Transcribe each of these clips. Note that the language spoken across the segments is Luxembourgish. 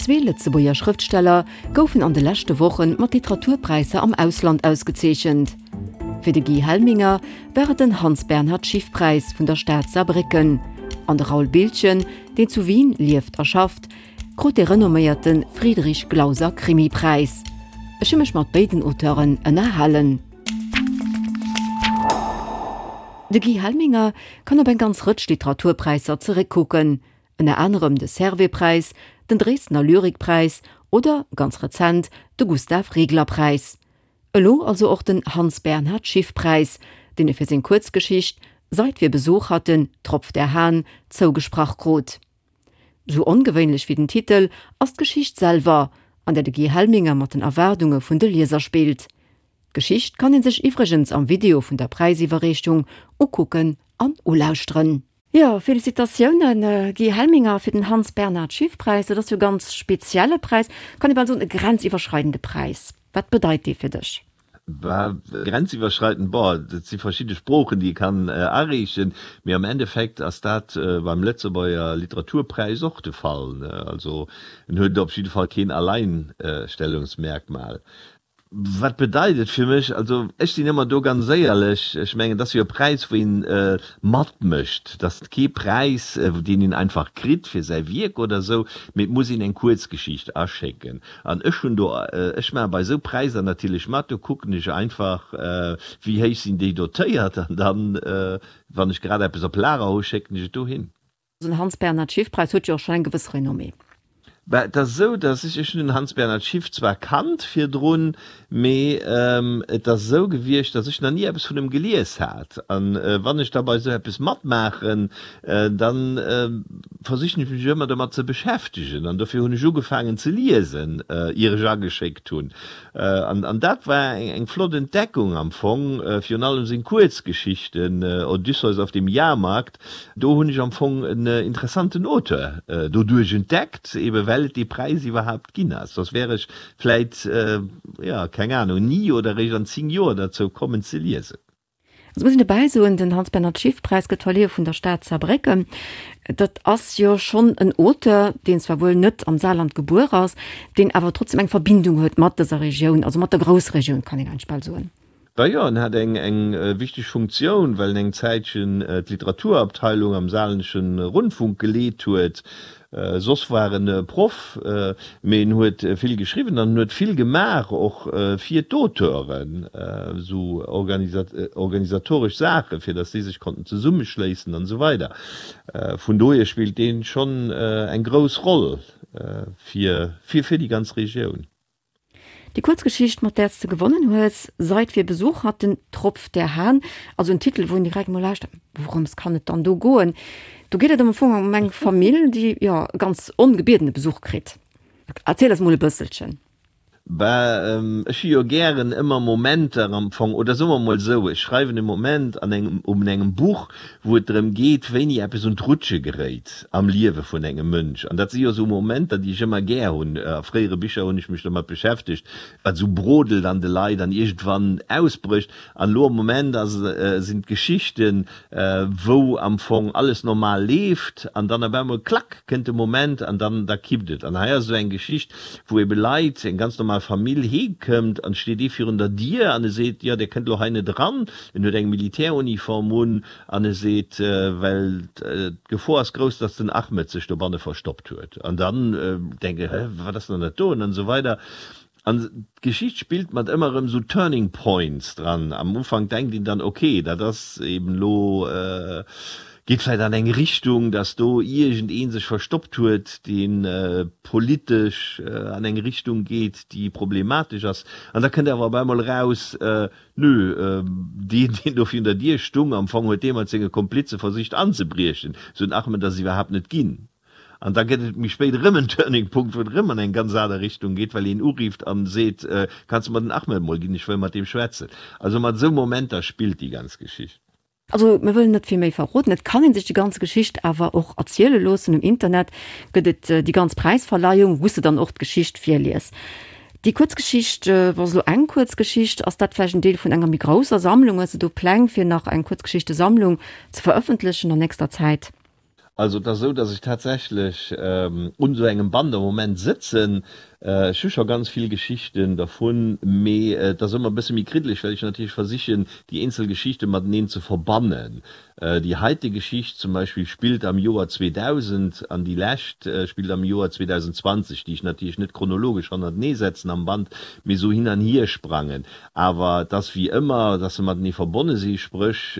Zwee Lëtzebuerger Schrëftsteller goufen an de leschte Woche mat Literaturpräisser am Ausland ausgezeechent. Fir de Guy Helminger war et den Hans-Bernhard-Schiff-Präis vun der Stad Saarbrécken an de Raoul Biltgen, deen zu Wien lieft a schafft, krut de renomméierte Friedrich-Glauser-Krimipräis. Ech hu mech mat béiden Auteuren ënnerhalen. De Guy Helminger kann op eng ganz Rëtsch Literaturpräisser zeréckkucken, ënner anerem de Servais-Präis, den Dresdner Lyrikpräis oder, ganz rezent, de Gustav-Regler-Präis. Elo also och den Hans-Bernhard-Schiff-Präis, deen e fir seng Kuerzgeschicht Seit wir Besuch hatten, tropft der Hahn zougesprach krut. Sou ongewéinlech wéi den Titel ass d'Geschicht selwer, an där de Guy Helminger mat den Erwaardunge vun de Lieser spillt. D'Geschicht kann ee sech iwwregens am Video vun der Präisiwwerreechung ukucken an ulauschteren. Jo, Félicitatiounen Guy Helminger fir den Hans Bernhard Schiff Präis. Dat ass jo e ganz spezielle Präis, kann ee bal soen e grenziwwerschreidende Präis. Wat bedeit dee fir dech? Bah, grenziwwerschreidend, boah, dat si verschidde Sproochen déi ee kann areechen, mee am Endeffekt ass dat beim Lëtzebuerger Literaturpräis och de Fall, ne? Also en huet op jidde Fall keen Alleinstellungsmerkmal. Wat bedeit et fir mech? Also ech sinn ëmmer do ganz éierlech, ech mengen, et ass jo e Präis, wou een matmécht. Et ass kee Präis, deen een einfach kritt fir säi Wierk oder esou, mee et muss een eng Kuerzgeschicht aschécken. An ech hunn do, ech maache bei esou Präisser natierlech mat, do kucken ech einfach, wéi héich sinn déi dotéiert an dann, wann ech grad eppes op Lager hu, schécken ech et dohin. Den Hans-Bernhard Schiff-Präis huet jo och schonn eng gewëss Renommée. Bah, et ass esou, datt ech, ech hunn den Hans-Bernhard Schiff zwar kannt virdrun, mee et ass esou gewiescht, datt ech nach ni eppes vun em gelies hat. An wann ech da bei esou eppes matmaachen, da versichen ech mech ëmmer domat ze beschäftegen. An dofir hunn ech ugefaangen ze liesen, ier ech ageschéckt hunn. An dat war eng flott Entdeckung am Fong, virun allem seng Kuerzgeschichten, Odysseus auf dem Jahrmarkt, do hunn ech am Fong en interessanten Auteur doduerch entdeckt, ebe well et dee Präis iwwerhaapt ginn ass. Soss wär ech vläit, jo, keng Ahnung, ni oder eréischt an 10 Joer derzou kommen ze liesen. Et muss een dobäi soen, den Hans-Bernhard-Schiff-Präis gëtt verlieh vun der Stad Saarbrécken. Dat ass jo schonn en Auteur, deen zwar wuel net am Saarland gebuer ass, deen awer trotzdem eng Verbindung huet mat dëser Regioun, also mat der Groussregioun, kann een eigentlech bal soen. Bah jo, en hat eng eng wichteg Funktioun, well en eng Zäitchen d'Literaturabteilung am Saarländesche Rundfunk geleet huet. Soss war en Proff, mee en huet vill geschriwwen an en huet vill gemaach och fir d'Auteuren, esou organisatoresch Saachen, fir datt si sech konnten zesummeschléissen an esou weider. Vun dohier spillt dee schonn eng grouss Roll fir fir déi ganz Regioun. Déi Kuerzgeschicht, mat där s de gewonnen hues, Seit wir Besuch hatten, tropft der Hahn, also en Titel, wou een direkt emol lauschtert, wourëms kann et dann do goen? Do geet et am Fong ëm eng Famill, déi, jo, e ganz ongebiedene Besuch kritt. Erziel eis emol e bësselchen. Bah, ech hu jo gären ëmmer Momenter am Fong, oder soe mer emol esou, ech schreiwen e Moment an engem, un engem Buch, wou et drëm geet, wéini eppes un d'Rutsche geréit am Liewe vun engem Mënsch. An dat si jo esou Momenter, déi ech ëmmer gär hunn. A fréiere Bicher hunn ech mech domat beschäftegt, wat esou brodelt an de Leit an iergendwann ausbrécht. An elo am Moment ass, sinn d'Geschichten, wou am Fong alles normal leeft an dann op eemol, klack, kënnt de Moment an dann, da kippt et. An hei ass esou eng Geschicht, wou ebe Leit, eng ganz normal Famill heemkëmmt an et steet ee virun der Dier an e seet, jo, Dir kënnt elo hei net eran. En huet eng Militäruniform un an e seet, well d'Gefor ass grouss, datt den Ahmed sech dobanne verstoppt huet. An dann denkt een, hä, wat ass dann dat do? An esou weider. An d'Geschicht spillt mat ëmmer erëm esou Turning Points dran. Am Ufank denkt een dann, ok, dat ass eben elo, geet vläicht an eng Richtung, datt do iergendee sech verstoppt huet, dee politesch an eng Richtung geet, déi problematesch ass. An da kënnt awer op eemol eraus, Nö, deen, deen do virun der Dier stung, am Fong huet dee mat senge Komplize versicht anzebriechen. Sou en Ahmed ass iwwerhaapt net ginn. An da gëtt et méi spéit erëm en Turning Punkt, wou et erëm an eng ganz aner Richtung geet, well een urifft an seet, Kanns de mer den Ahmed mol ginn, ech wëll mat deem schwätzen. Also mat esou Momenter spillt déi ganz Geschicht. Also mir wëllen net vill méi verroden, et kann een sech déi ganz Geschicht awer och erziele loossen. Um Internet gëtt et déi ganz Präisverleihung, wou s de dann och d'Geschicht virlies. Déi Kuerzgeschicht, ass elo eng Kuerzgeschicht, ass dat vläicht en Deel vun enger méi grousser Sammlung? Hues de do Pläng fir nach eng Kuerzgeschichtesammlung ze verëffentlechen an nächster Zäit? Also et ass esou, datt ech tatsächlech un esou engem Band am Moment sëtzen. Ech hu scho ganz vill Geschichten dervun, mee et ass ëmmer e bësse méi kriddeleg, well ech natierlech versichen, déi eenzel Geschichte mateneen ze verbannen. Déi heite Geschicht zum Beispill spillt am Joer 2000 an déi lescht spillt am Joer 2020, déi ech natierlech net chronologesch hannertenee setzen am Band, mee esou hin an hier sprangen. Awer et ass wéi ëmmer, datt se matenee verbonne si, spréch,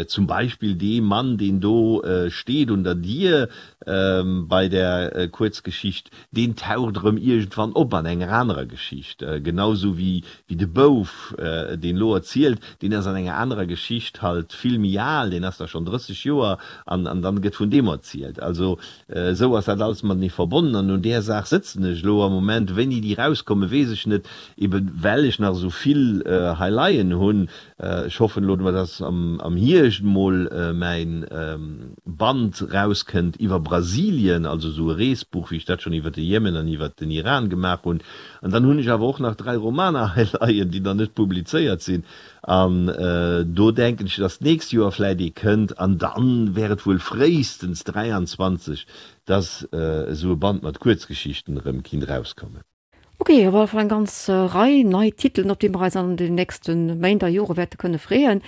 Zum Beispill dee Mann, deen do steet un der Dier bei der Kuerzgeschicht, deen taucht erëm iergendwann op an enger anerer Geschicht. Genau sou wéi de Bouf, deen elo erzielt, deen ass an enger anerer Geschicht halt vill méi al, deen ass da schonn 30 Joer an dann gëtt vun deem erzielt. Also esou ass dat alles matenee verbonnen an un där Saach sëtzen ech elo am Moment. Wéini déi erauskommen, weess ech net, eben well ech nach esou vill hei leien hunn. Ech hoffen elo dass am Hierscht mol mäin Band rauskënnt iwwer Brasilien, also esou e Reesbuch wéi ech dat schonn iwwer de Jemen an iwwer den Iran gemaach hunn. An dann hunn ech awer och nach 3 Romaner hei leien, déi nach net publizéiert sinn. An do denken ech, dass d'nächst Joer vläit ee kënnt an dann wär et wuel fréistens 23, dass esou e Band mat Kuerzgeschichten erëm kinnt rauskommen. Ok, op alle Fall eng ganz Rei nei Titelen, op déi mer eis an den nächste Méint a Jore wäerte kënne freeën.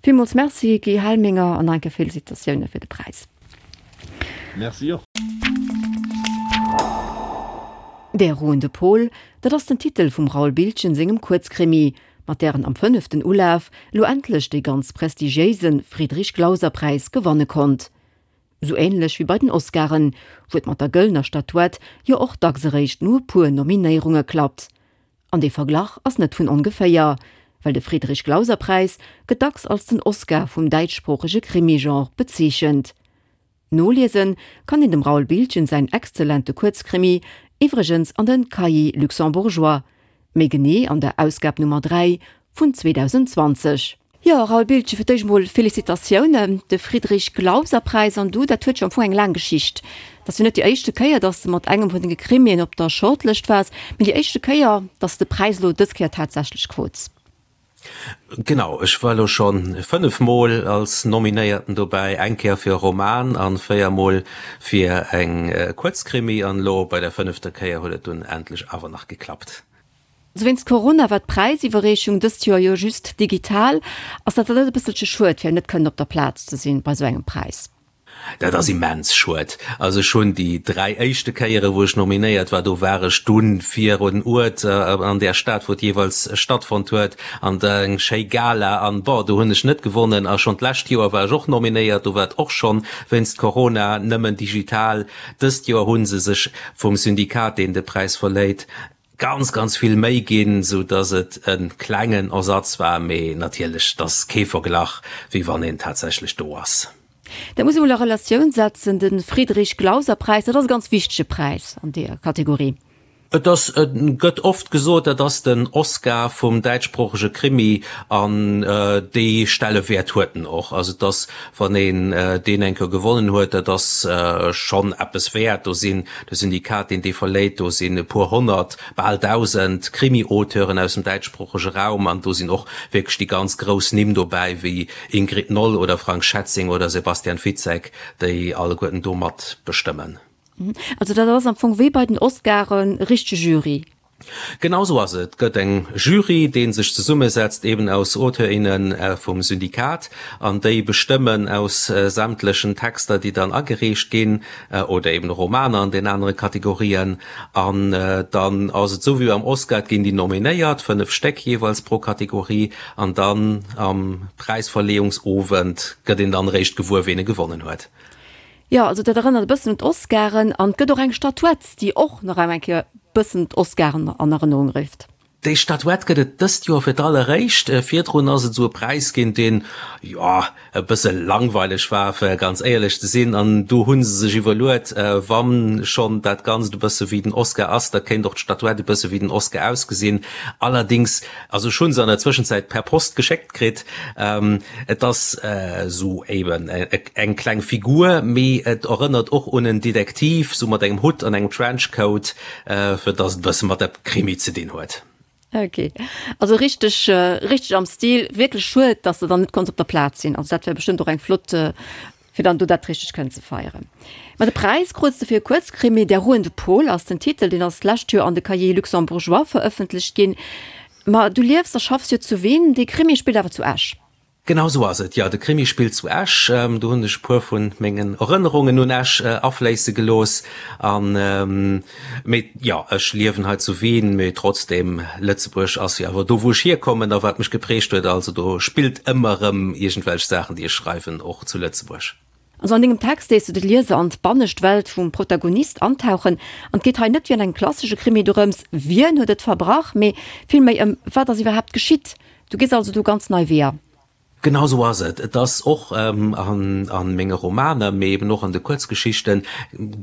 Villmools Merci Guy Helminger an nach eng Kéier Felicitatioune fir de Präis. Merci och. Der ruhende Pol, dat ass den Titel vum Raoul Biltgen sengem Kuerzkrimi, mat där en am fënneften Ulaf elo endlech dee ganz prestigiéise Friedrich-Glauser-Präis gewanne konnt. Sou ähnlech wéi bei den Oscaren, wou et mat der gëllener Statuett jo och dacks eréischt no e puer Nominéierunge klappt. An dee Verglach ass net vun ongeféier, well de Friedrich-Glauser-Präis gëtt dacks als den Oscar vum däitschsproochege Krimi-Genre bezeechent. Noliese kann een dem Raoul Biltgen säin exzellente Kuerzkrimi iwwregens an den Cahiers luxembourgeois, méi genee an der Ausgab Nummer 3 vun 2020. Jo, Raoul Biltgen, fir d'éischt emol Félicitatiounen. De Friedrich-Glauser-Präis an du, dat huet jo am Fong eng laang Geschicht. Dat ass jo net déi éischte Kéier, datt s de mat engem vun denge Krimien op der Shortlëscht waars, mee déi éischte Kéier, datt s de Präis elo dës Kéier tatsächlech krut. Genau, ech war elo scho 5 Mol als Nominéierten dobäi, eng Kéier fir e Roman an 4 Mol fir eng Kuerzkrimi an elo bei der fënnefter Kéier huet et dunn endlech awer nach geklappt. Also wéinst Corona war d'Präisiwwerreechung dëst Joer jo just digital. Ass dat dann net e bësselche schued, fir net kënnen op der Plaz ze sinn bei esou engem Präis? Dat ass immens schued. Also ech hunn déi 3 éischte Kéiere wou ech nominéiert war, do war ech dunn virun Uert an där Stad wou et jeeweils stattfonnt huet an der eng schéi Gala an bon do hunn ech net gewonnen. A schonn d'lescht Joer war ech och nominéiert, do war et och schonn wéinst Corona nëmmen digital. Dëst Joer hu se sech vum Syndikat deen de Präis verléit, ganz ganz vill Méi ginn, sou dass et e klengen Ersatz war, mee natierlech et ass kee Verglach wéi wann een tatsächlech do ass. Dat muss ee mol a Relatioun setzen, de Friedrich-Glauser-Präis, dat ass e ganz wichtege Präis an deeër Kategorie. Et ass, et gëtt oft gesot, dat ass den Oscar vum däitschsproochege Krimi an dee Stellewäert huet en och. Also et ass, wann een deen eng Kéier gewonnen huet, dat ass schonn eppes wäert. Do sinn De Syndikat, deen dee verléit, do sinn e puer honnert, bal 1.000 Krimi-Auteuren aus dem däitschsproochege Raum an do sinn och wierklech déi ganz grouss Nimm dobäi, wéi Ingrid Noll oder Frank Schätzing oder Sebastian Fitzek, déi alleguerten do mat bestëmmen. Also dat ass am Fong wéi bei den Oscaren, e richtege Jury. Genau sou ass et. Et gëtt eng Jury, dee sech zesummesetzt eben aus Auteur, inne vum Syndikat an déi bestëmmen aus sämtlechen Texter, déi dann agereecht ginn, oder eben Romaner an den anere Kategorien. An dann ass et sou wéi beim Oscar, et ginn déi nominéiert, 5 Stéck jeeweils pro Kategorie, an dann am Präisverleeungsowend gëtt een dann eréischt gewuer, ween e gewonnen huet. Jo, also dat erënnert e bëssen un d'Oscaren an et gëtt och eng Statuett, déi och nach eng Kéier e bëssen d'Oscaren an Erënnerung rifft. Déi Statuett gëtt et dëst Joer fir d'alleréischt. Virdrun ass et esou e Präis ginn, deen, jo, e bësse langweileg war, fir ganz éierlech ze sinn. An do hu se sech iwwerluet, wa schonn dat Ganzt e bësse wéi den Oscar ass, da kéint och d'Statuett e bësse wéi den Oscar ausgesinn. Allerdéngs, also ech hu se an der Zwëschenzäit per Post geschéckt kritt. Et ass esou eben eng kleng Figur, mee et erënnert och un en Detektiv, sou mat engem Hutt an engem Trenchcoat, fir dass et e bësse mat der Krimi ze dinn huet. Ok, also richteg, richteg am Stil. Wierklech schued, dass de dann net konns op der Plaz sinn. Also dat wär bestëmmt och eng flott. Fir dann do dat richteg kënnen ze feieren. Ma de Präis krut de fir e Kuerzkrimi, Der ruhende Pol ass den Titel, deen ass d'lescht Joer an de Cahiers luxembourgeois verëffentlecht ginn. Ma du liefs a schaffs jo zu Wien, dee Krimi spillt awer zu Esch. Genau sou ass et, jo. De Krimi spillt zu Esch. Do hunn ech e puer vu mengen Erënnerungen un Esch afléisse gelooss. An, mee jo, ech liewen hei zu Wien, mee trotzdem, Lëtzebuerg ass jo awer do, wou ech hierkommen a wat mech geprägt huet. Also do spillt ëmmer erëm iergendwelch Saachen, déi ech schreiwen, och zu Lëtzebuerg. Also an dengem Text léiss du de Lieser an d'bannescht Welt vum Protagonist antauchen. An et geet hei net wéi an engem klassesche Krimi dorëms, wien huet et verbrach, mee villméi ëm wat ass iwwerhaapt geschitt. Du gees also do ganz nei Weeër. Genau sou ass et. Et ass och a menge Romaner, mee eben och an de Kuerzgeschichten,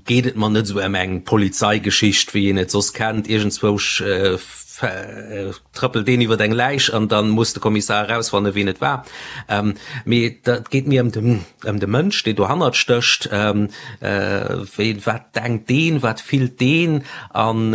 geet et mer net esou ëm eng Polizeigeschicht, wéi een et soss kennt, iergendzwousch trëppelt een iwwer eng Läich an da muss de Kommissar erausfannen, wien et war. Mee et geet mir ëm de ëm de Mënsch, deen dohannert stécht, wéi, wat denkt deen, wat fillt deen? An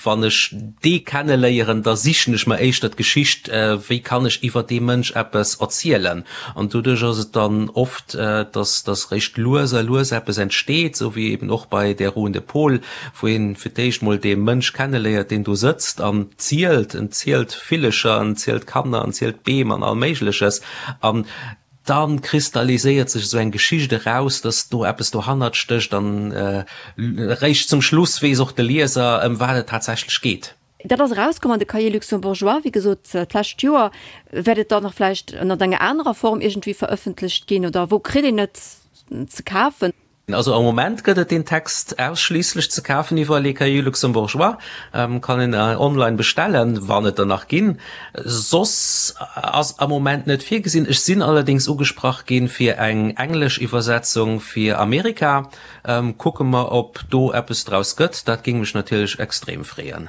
wann ech dee kenneléieren, da sichen ech mer éischter d'Geschicht, wéi kann ech iwwer dee Mënsch eppes erzielen. An doduerch ass et dann oft, dass dass réischt lues a lues eppes entsteet, esou wéi eben och bei Der ruhende Pol, wou een fir d'éischt mol dee Mënsch kenneléiert, deen do sëtzt an zielt. En zielt Villecher, en zielt Kanner, en zielt Beem an all Méigleches. An Da kristalliséiert sech esou eng Geschicht eraus, dass do eppes dohannert stécht an eréischt zum Schluss weess och de Lieser, ëm wat et tatsächlech geet. Dat ass erauskomm an de Cahiers luxembourgeois, wéi gesot, d'lescht Joer. Wäert et dann nach vläicht ënnert enger anerer Form iergendwéi verëffentlecht ginn oder wou kritt een et ze kafen? Also am Moment gëtt et deen Text ausschliisslech ze kafen iwwer Les Cahiers Luxembourgeois, kann een online bestellen, wann et der nach ginn. Soss ass am Moment net virgesinn. Ech sinn allerdéngs ugesprach ginn fir eng englesch Iwwersetzung fir Amerika. Kucke mer ob do eppes draus gëtt, dat géing mech natierlech extrem freeën.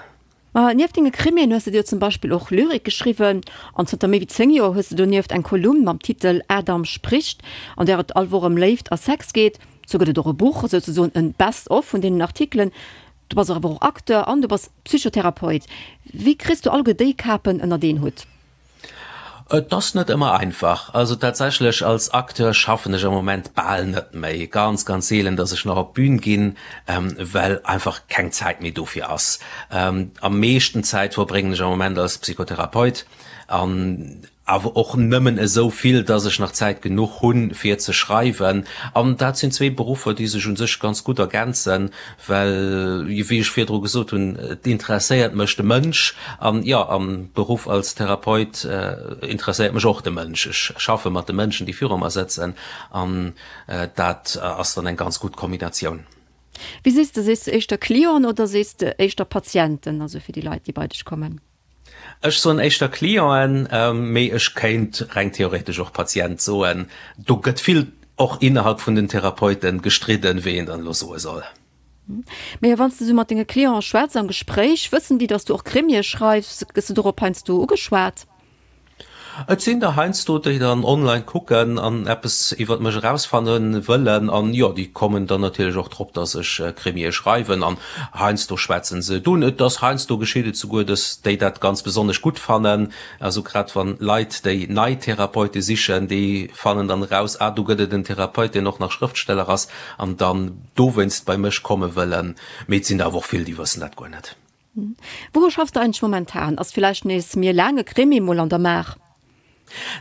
Ma nieft denge Krimien hues de dir zum Beispill och Lyrik geschriwwen an zënter méi wéi 10 Joer hues de donieft eng Kolumn mam Titel Adam spricht, an där et all Woch ëm Léift a Sex geet. Sou gëtt et och e Buch, souzesoen en Best of vun deenen Artikelen. Du bass awer och Acteur an du bass Psychotherapeut. Wéi kriss du alleguer déi Kapen ënnert een Hutt? Et ass net ëmmer einfach. Also tatsächlech als Acteur schaffen ech am Moment bal net méi. Ganz, ganz seelen, datt ech nach op d'Bün ginn, well einfach keng Zäit méi dofir ass. Am meeschten Zäit verbréngen ech am Moment als Psychotherapeut an awer och nëmmen esou vill, datt ech nach Zäit genuch hunn, fir ze schreiwen. An dat sinn zwee Beruffer, déi sech u sech ganz gutt ergänzen. Well, wéi ech virdru gesot hunn, et interesséiert mech de Mënsch. An jo, am Beruff als Therapeut interesséiert mech och de Mënsch. Ech schaffe mat de Mënschen, déi viru mer sëtzen. An dat ass dann eng ganz gutt Kombinatioun. Wéi sees de, sees de éischter Clienten oder sees de éischter Patienten, also fir déi Leit, déi bei dech kommen? Ech soen éischter Clienten, mee ech kéint reng theoretesch och Patient soen. Do gëtt vill och innerhalb vun den Therapeute gestridden, wéi een dann elo soe soll. Mee wann s de esou mat denge Clienten schwätz am Gespréich, wëssen déi, datt s du och Krimie schreifs? Gëss de dorop heiansdo ugeschwat? Et sinn der heiansdo, déi dann online kucken an eppes iwwert mech erausfanne wëllen. An jo, déi kommen dann natierlech och drop, dass ech Krimie schreiwen. An heiansdo schwätzen se et un. Et ass heiansdo geschitt et souguer, dass déi dat ganz besonnesch gutt fannen. Also grad wann Leit, déi nei Therapeute sichen, déi fannen dann eraus, ah do gëtt et en Therapeut, deen och nach Schrëftsteller ass, an dann dowéinst bei mech komme wëllen. Mee et sinn der awer och vill, déi wëssen dat guer net. Wouru schaffs de eigentlech momentan? Ass villäicht nees méi e laange Krimi mol an der Maach?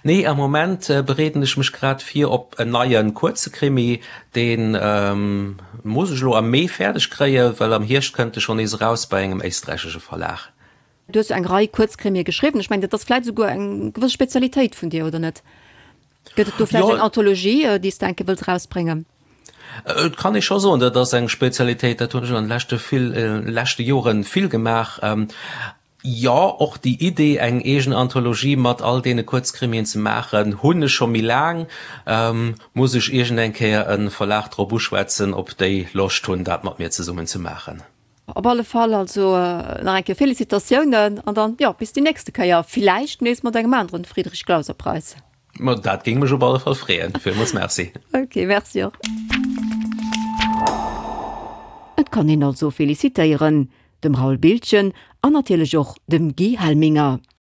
Nee, am Moment bereeden ech mech grad vir op en neie kuerze Krimi. Dee muss ech elo am Mee fäerdeg kréien, well am Hierscht kënnt e schonn nees eraus bei engem éisträichesche Verlag. Du hues jo eng Rei Kuerzkrimie geschriwwen. Ech mengen, dat ass vläicht esouguer eng gewëss Spezialitéit vun dir, oder net? Gëtt et do vläicht eng Anthologie, déi s de eng Kéier wëlls erausbréngen? Et kann ee scho soen, dat ass eng Spezialitéit. Dat hunn ech an de leschte vill, leschte Jore vill gemaach. Jo, och déi Idee, eng eegen Anthologie mat all deene Kuerzkrimien ze maachen, hunn ech scho méi laang. Muss ech iergend eng Kéier e Verlag drop uschwätzen, ob déi Loscht hunn, dat mat mir zesummen ze maachen. Op alle Fall also nach eng Kéier Félicitatiounen an dann, jo, bis déi nächste Kéier, villäicht nees mat engem aneren Friedrich Glauser Preis. Ma dat géing mech op alle Fall freeën. Villmools Merci. Ok, merci och. Et kann een also felicitéieren, dem Raoul Biltgen an natierlech och dem Guy Helminger.